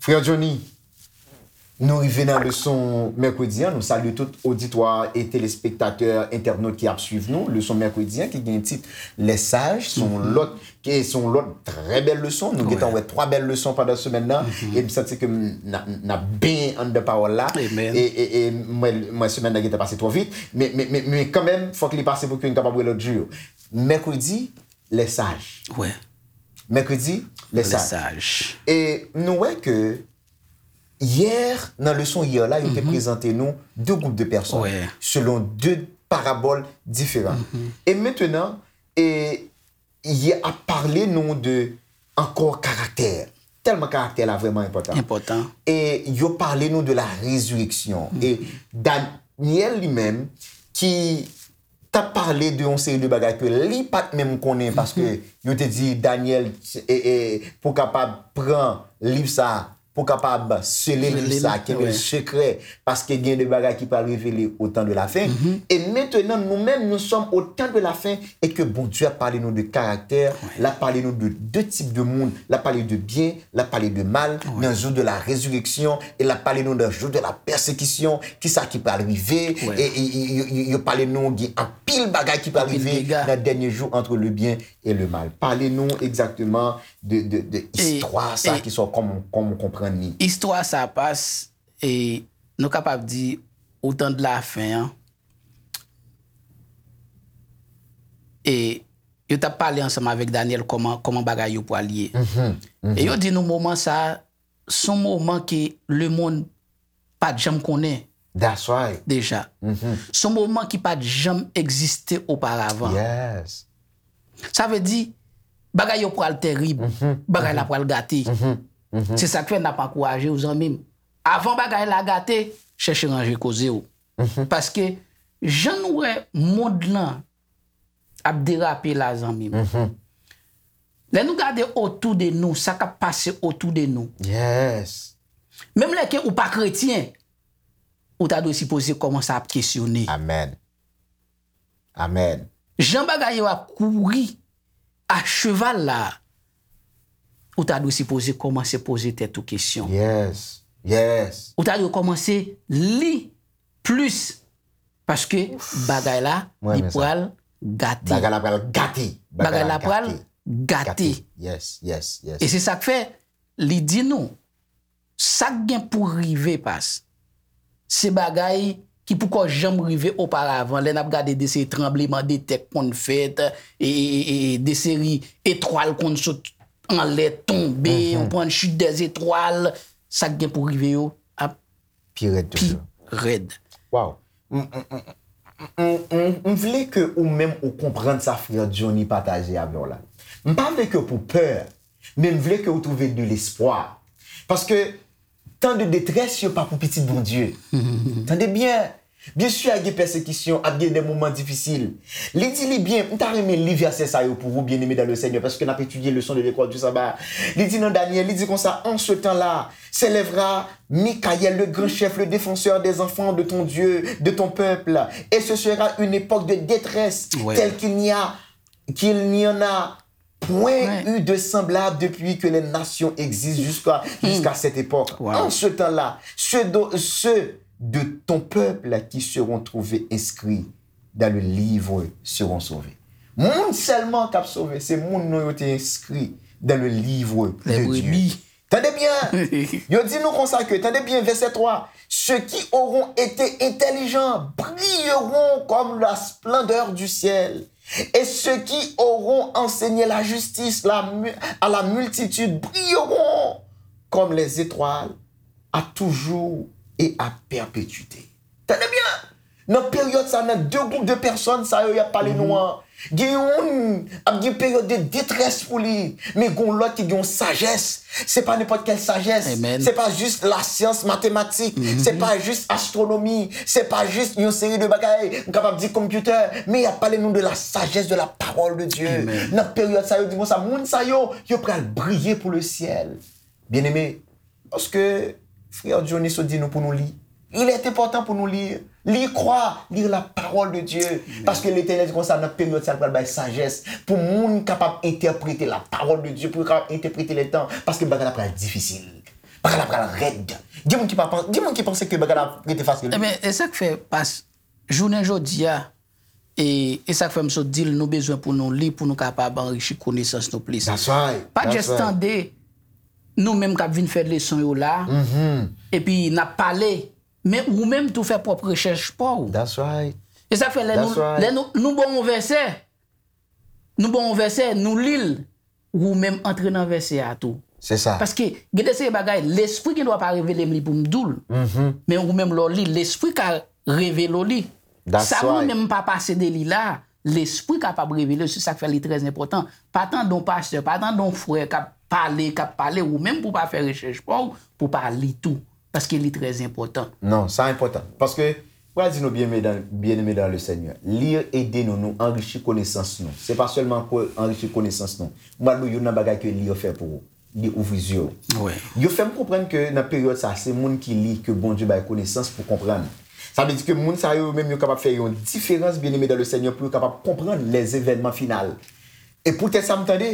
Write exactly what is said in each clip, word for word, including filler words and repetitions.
Frè Johnny, nou rive nan leson mèkredi an. Nou salye tout oditwa e telespektatè, entènot ki ap swiv nou. Leson mèkredi an ki gen tit Les Sages, se yon lòt, ki se yon lòt trè bèl leson. Nou gentan wè twa bèl leson pandan semèn nan. E m santi ke n ap, n ap benyen anndan pawòl la. E, e, e mwen, mwen semèn nan gentan pase twò vit. Men, men, men, men kanmenm, fòk li pase pou ke n kapab wè lòt jou yo. Mèkredi, Les Sages. Mèkredi, Les Sages. E nou wè ke yè, nan leson yè la, yo te prezante nou de gwoup de pèsòn, selon de parabòl diferan. E mentenan, e, y ap pale nou de ankò karaktè. Tèlman karaktè la vrèman enpòtan. E yo pale nou de la rezireksyon. E Danyèl li menm, ki t ap pale de yon seri de bagay ke li pa t menm konnen, paske yo te di Danyèl, e, e, pou kapab pran liv sa, pou kapab sele liv sa, kenbe l sekrè, paske gen de bagay ki pral revele au temps de la fin. E mentenan, nou menm, nous sommes au temps de la fin, e ke Bondye ap pale nou de karaktè, l ap pale nou de de tip de moun, l ap pale de byen, l ap pale de mal, nan jou de la rezireksyon, e l ap pale nou nan jou de la pèsekisyon, kisa ki pral rive, e, e, e, yo, yo, yo pale nou gen anpil bagay ki pral rive nan dènye jou, entre le bien et le mal. Pale nou egzakteman de, de, de istwa sa ki sòt, kòman, kòman w konprann li. Istwa sa pas, e, nou kapab di, au temps de la fin an, e yo t ap pale ansanm avèk Danyèl kòman, kòman bagay yo pral ye. E yo di nou moman sa, se yon moman ke lemonn pa t janm konnen deja. Se yon moman ki pa t janm egziste oparavan. Sa vle di, bagay yo pral tèrib, bagay la pral gate. Se sa k fè n ap ankouraje w, zanmi m. Avan bagay la gate, chèche ranje koze w. Paske, jan nou wè mond lan ap derape la, zanmi m. Lè nou gade otou de nou, sa k ap pase otou de nou. Menm lè ke ou pa kretyen, ou ta dwe sipoze kòmanse ap kesyone. Amèn. Amèn. Jan bagay yo ap kouri a cheval la, ou ta dwe sipoze kòmanse poze tèt ou kesyon. Yes. Yes. Ou ta dwe kòmanse li plis. Paske bagay la, li pral gate. Bagay la pral gate. Bagay la pral gate. Yes, yes, yes. E se sa k fè, li di nou, sa k gen pou rive pas, se bagay ki poko janm rive oparavan. Lè n ap gade de seri tranbleman de tè k konn fèt, e, e, e, e de seri etwal konn sot anlè, tonbe, ou pran chute des étoiles, sa k gen pou rive yo ap pi rèd toujou. Pi rèd. Waw. M, m, m, m, m, m vle ke ou menm ou konprann sa frè Johnny pataje avè w la. M pa vle ke w pou pè, men m vle ke w twouve de lespwa. Paske tan de detrès yo pa pou pitit Bondye. Tande byen. Byen si ap gen pèsekisyon, ap gen de moman difisil. Li di li byen, m ta renmen li vèsè sa yo pou ou, bien-aimés dans le Seigneur, paske n ap etidye leson de lekòl du sabbat. Li di nan Danyèl, li di konsa, en ce temps-là, s'élèvera Michael, le grand chef, le défenseur des enfants de ton Dieu, de ton peuple. Et ce sera une époque de détresse telle qu'il n'y a, qu'il n'y en a point eu de semblable depuis que les nations existent jusqu'à, jusqu'à cette époque. En ce temps-là, ceux de, ceux de ton peuple qui seront trouvés inscrits dans le livre seront sauvés. Moun sèlman k ap sove, se moun non yo te enskri dans le livre de Dieu. Tande byen, yo di nou konsa ke, tande byen, vèsè twa, ceux qui auront été intelligents brilleront comme la splendeur du ciel, et ceux qui auront enseigné la justice la mu- à la multitude brilleront comme les étoiles à toujours et à perpétuité. Tande byen! Nan peryòd sa, nan de gwoup de pèsòn sa yo y ap pale nou an, gen youn ap gen peryòd de detrès pou li, men gen yon lòt ki gen yon sajès. Se pa nenpòt kèl sajès. Se pa jis lasyans, matematik. Se pa jis astwonomi. Se pa jis yon seri de bagay, m kapab di computer. Men y ap pale nou de la sagesse de la parole de Dieu. Nan peryòd sa yo, di konsa, moun sa yo, yo pral briye pou le syèl. Byeneme, lòske frè Johnny sot di nou pou nou li, Il est important pou nou li, li kwa, li la pawòl de Dye. Paske Letènèl di konsa, nan peryòd sa, l pral bay sajès pou moun kapab entèprete la pawòl de Dye, pou yo kapab entèprete lè tan, paske bagay la pral difisil. Bagay la pral rèd. Gen moun ki pa pan-, gen moun ki panse ke bagay la rete fasil. Ebyen, e sa k fè, pas, jounen jodi a, e, e sa k fè m sot di l, nou bezwen pou nou li, pou nou kapab anrichi konesans nou plis. That's right. Pa just tande nou menm k ap vin fè leson yo la, epi n ap pale, men ou menm tou fè pwòp rechèch pa w. That's right. E sa k fè lè nou, lè nou, nou ba w yon vèsè, nou ba w yon vèsè, nou li l, ou menm antre nan vèsè a tou. Se sa. Paske gen de seri bagay, lespri gen dwa pa revele m li pou m di w l. Men ou menm lè w li, lespri ka revele w li. Sa mwen menm m pa pase de li la, lespri kapab revele w, se sa k fè li trè enpòtan. Pa tande yon pastè, pa tande yon frè k ap pale, k ap pale, ou menm pou w pa fè rechèch pa w, pou w pa li tou. Paske li trè enpòtan. Non, sa enpòtan. Paske, m pral di nou, byeneme dan, byeneme dan le Senyè, li ede nou, nou anrichi konesans nou. Se pa sèlman pou anrichi konesans nou. M pral ba w youn nan bagay ke li fè pou ou. Li ouvri zye w. Yo fè m konprann ke nan peryòd sa, se moun ki li ke Bondye bay konesans pou konprann. Sa vle di ke moun sa yo menm yo kapab fè yon diferans, byeneme dan le Senyè, pou yo kapab konprann lèzevènman final. E poutèt sa, m tande,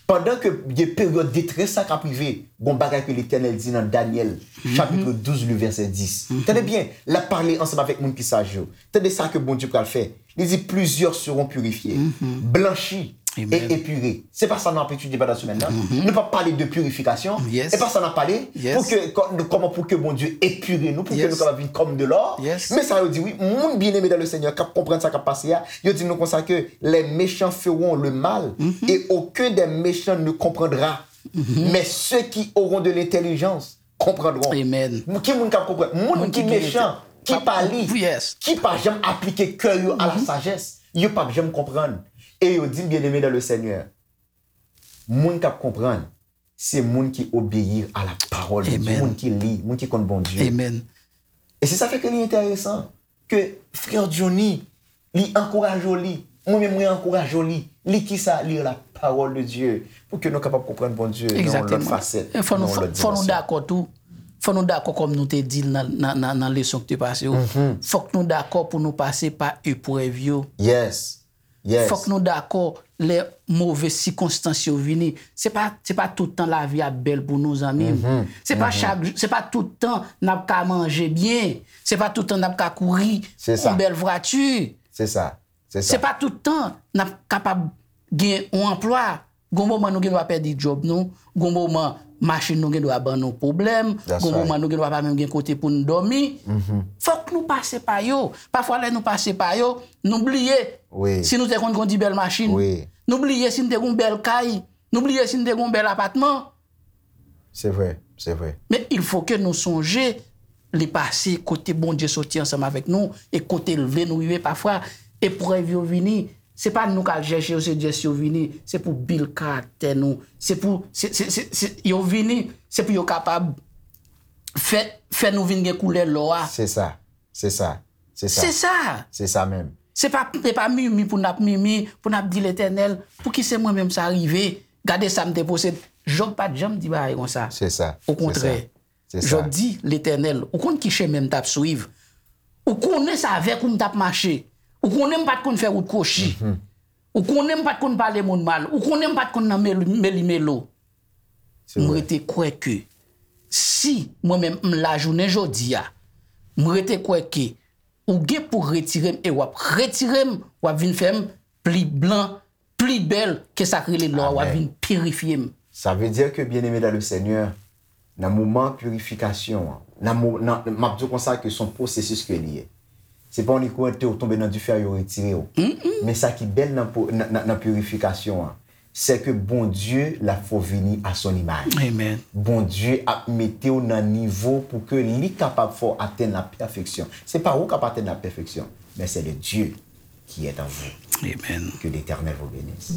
pandan ke gen peryòd detrès sa k ap rive, gon bagay ke Letènèl di nan Danyèl, chapit douz, le vèsè dis. Tande byen, l ap pale ansanm avèk moun ki saj yo. Tande sa ke Bondye pral fè. Li di, plusieurs seront purifiés, blanchis et épurés. Se pa sa n ap etidye pandan semèn nan. Nou p ap pale de purifikasyon. E pa sa n ap pale. Pou ke, kò-, kòman pou ke Bondye epire nou, pou ke nou kapab vin kòm de lò. Men sa yo di, wi, moun byeneme dan le Senyè k ap konprann sa k ap pase a, yo di nou konsa ke les méchants feront le mal et aucun des méchants ne comprendra. Mais ceux qui auront de l'intelligence comprendront. Ki moun k ap konprann? Moun ki mechan, ki pa li, ki pa janm aplike kè yo a la sajès, yo p ap janm konprann. E yo di m, byeneme dan le Senyè, moun k ap konprann, se moun ki obeyi a la pawòl de Dye, moun ki li, moun ki konn Bondye. E se sa fè ke li enteresan ke frè Johnny, li ankouraje w li, mwen menm mwen ankouraje w li. Li kisa? Li la pawòl de Dye. Pou ke nou kapab konprann Bondye nan yon lòt fasèt, nan yon lòt dimansyon. Fò nou dakò tou. Fò nou dakò kòm nou te di l nan, nan, nan, nan leson ki te pase yo. Fòk nou dakò pou nou pase pa eprèv yo. Fòk nou dakò lè move sikonstans yo vini. Se pa, se pa tout tan lavi ap bèl pou nou, zanmi m. Se pa chak jou, se pa tout tan n ap ka manje byen. Se pa tout tan n ap ka kouri yon bèl vwati. Se sa. Se pa tout tan n ap kapab gen yon anplwa. Gon moman nou gen dwa pèdi djòb nou. Gon moman machin nou gen dwa ban nou pwoblèm. Gon moman nou gen dwa pa menm gen kote pou n dòmi. Fòk nou pase pa yo. Pafwa lè nou pase pa yo, nou bliye si nou te konn kondi bèl machin. Nou bliye si n te gon bèl kay. Nou bliye si n te gon bèl apatman. Se vre, se vre. Men il faut que nou sonje li pase kote Bondye soti ansanm avèk nou e kote l vle nou rive. Pafwa, eprèv yo vini, se pa nou k al chèche yo, se just yo vini. Se pou build karaktè nou. Se pou, se, se, se, se, yo vini, se pou yo kapab fè, fè nou vin gen koulè lò a. Se sa, se sa, se sa. Se sa. Se sa menm. Se pa, se pa mimi pou n ap mimi, pou n ap di Letènèl, pouki se mwen menm sa rive? Gade sa m te posede. Jòb pa t janm di bagay konsa. Se sa. Okontrè, Jòb di, Letènèl, ou konn ki chemen m t ap swiv. Ou konnen se avèk ou m t ap mache. Ou konnen m pa t konn fè wout kwochi. Ou konnen m pa t konn pale moun mal. Ou konnen m pa t konn nan meli, meli melo. M rete kwè ke si mwen menm m la jounen jodi a, m rete kwè ke ou gen pou retire m e w ap retire m, w ap vin fè m pli blan, pli bèl ke sa k rele lò a, w ap vin pirifye m. Sa vle di ke, byeneme dan le Senyè, nan moman pirifikasyon an, nan mo-, nan, m ap di w konsa ke se yon pwosesis ke li ye. Se pa yon kou te w tonbe nan dife a, yo retire w. Men sa ki bèl nan po-, nan, nan, nan pirifikasyon an, se ke Bondye l ap fè w vini à son image. Bondye ap mete w nan nivo pou ke li kapab fè w atenn la pèfeksyon. Se pa ou k ap atenn la pèfeksyon, men se le Dieu qui est en vous. Que l'Éternel vous bénisse.